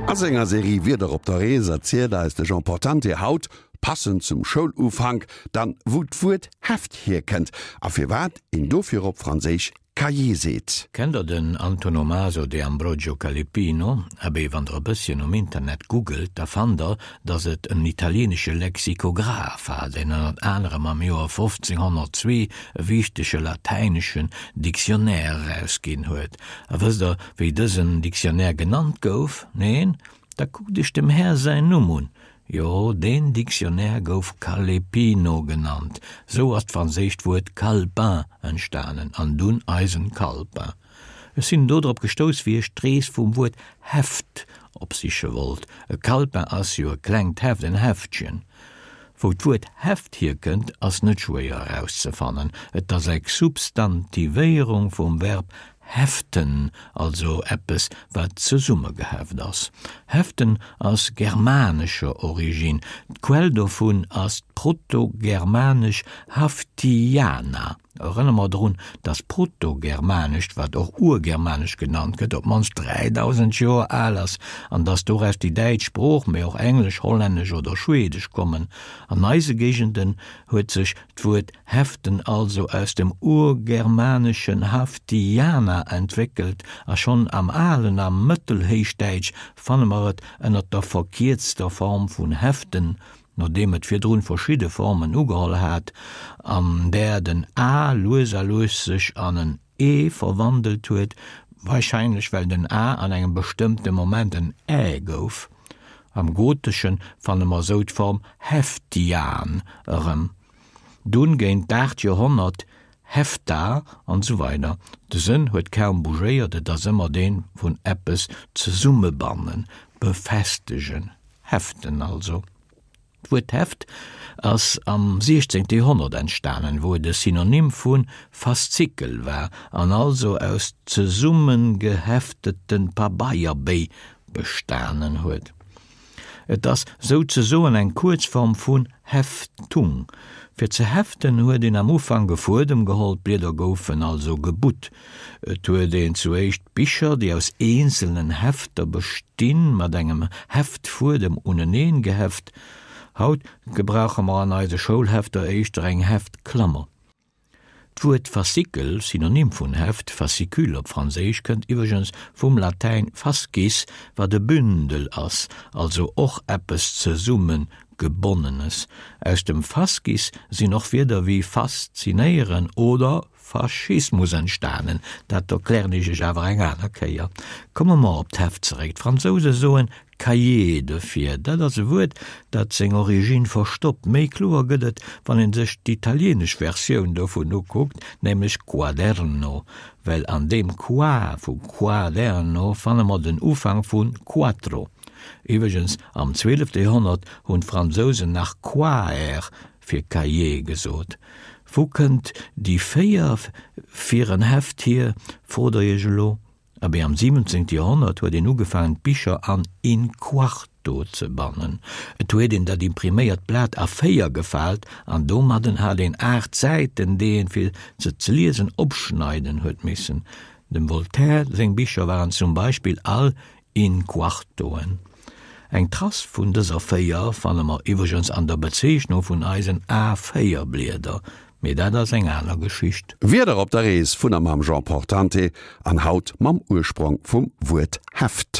A senger Serie Wierder op der Rees erzielt eis de Jean Portante haut, passend zum Schoulufank, dann wou d'Wuert Heft hierkënnt a firwat een dofir op Franséisch Cahier seet. Kennt der den Antonomaso de Ambrogio Calepino? Abee, wann der e bësschen um Internet googelt, da fannt der, datt et en italieenesche Lexikograph war, deen ënnert anerem am Joer 1502 e wichtege latäineschen Dictionnaire erausginn huet. A wësst der, wéi dësen Dictionnaire genannt gouf? Neen? Da kuckt iech dem Här säin Numm un, Jo, deen Dictionnaire gouf Calepino genannt. Sou ass d'franséischt Wuert Calepin entstanen, an dunn eisen Calepin. Ech sinn dodrop gestouss, wéi ech d'Rees vum Wuert Heft opsiche wollt. E Calepin ass jo e klengt Heft, en Heftchen. Wou d'Wuert Heft hierkënnt, ass net schwéier erauszefannen. Et ass eng Substantivéierung vum Verb Heften, also eppes wat zesummegeheft ass. Heften ass germanescher Originn, d'Quell dovun ass d'protogermanesch haftiana. Erënnere mer drun, datt d'Protogermanescht, wat och Urgermanesch genannt gëtt, op d'mannst 3000 Joer al ass an datt doraus déi däitsch Sprooch, mee och Englesch, Hollännesch oder Schweedesch kommen. An eise Géigenden huet sech d'Wuert Heften also aus dem urgermaneschen haftiana entwéckelt a schonn am alen a mëttelhéichdäitsch fanne mer et ënner der verkierzter Form vun heften, nodeem et virdrun verschidde Formen ugeholl hat, an där den a lues a lues sech an en e verwandelt huet, warscheinlech well den a an engem bestëmmte Moment en ä gouf. Am Goteschen fanne mer sou d'Form heftian erëm. Dunn géint d'aacht Joerhonnert Hefta an esou weider. De Sënn huet kaum bougéiert, et ass ëmmer deen vun eppes zesummebannen, befestegen, heften also. D'Wuert Heft ass am siechzéngte Joerhonnert entstanen, wou et e Synonym vu Faszikel war an also aus zesummengeheftete Pabeierbéi bestanen huet. Et ass souzesoen eng Kuerzform vun Heftung. Fir ze heften huet een am Ufank e Fuedem geholl, d'Blieder goufen also gebutt. Et huet een zu éischt Bicher, déi aus eenzelnen Hefter bestinn, mat engem Heftfuedem uneneen geheft. Haut gebrauche mer an eise Schoulhefter éischter eng Heftklammer. D'Wuert Faszikel, Synonym vun Heft, fascicule op Franséisch, kënnt iwwregens vum Latäin fascis, wat e Bündel ass, also och eppes Zesummegebonnenes. Aus dem fascis sinn och Wierder wéi faszinéieren oder Faschismus entstanen. Dat erklären ech iech awer eng aner Kéier. Komme mer op d'Heft zeréck. D'Fransouse soen Cahier dofir, dat ass e Wuert, dat seng Originn verstoppt. Méi kloer gëtt et, wann een sech d'italienesch Versioun dovun ukuckt, nämlech quaderno, well an deem qua vu quaderno fanne mer den Ufank vu quattro. Iwwregens, am zwielefte Joerhonnert hunn d'Fransousen nach quaer fir Cahier gesot. Wou kënnt déi 4 fir en Heft hier, frot der iech elo? Abee, am 17. Joerhonnert huet een ugefaangen d'Bicher an in quarto ze bannen. Et huet een dat impriméiert Blat a 4 gefaalt an domadden hat een 8 Säiten, déi een, fir se ze liesen, opschneiden huet missen. Dem Voltaire seng Bicher waren zum Beispill all in quartoen. Eng Trace vun dëser 4 fanne mer iwwregens an der Bezeechnung vun eisen A4-Blieder, Mee dat ass eng aner Geschicht. Wieder op der Rees vun a mam Jean Portante an haut mam Ursprong vum Wuert Heft.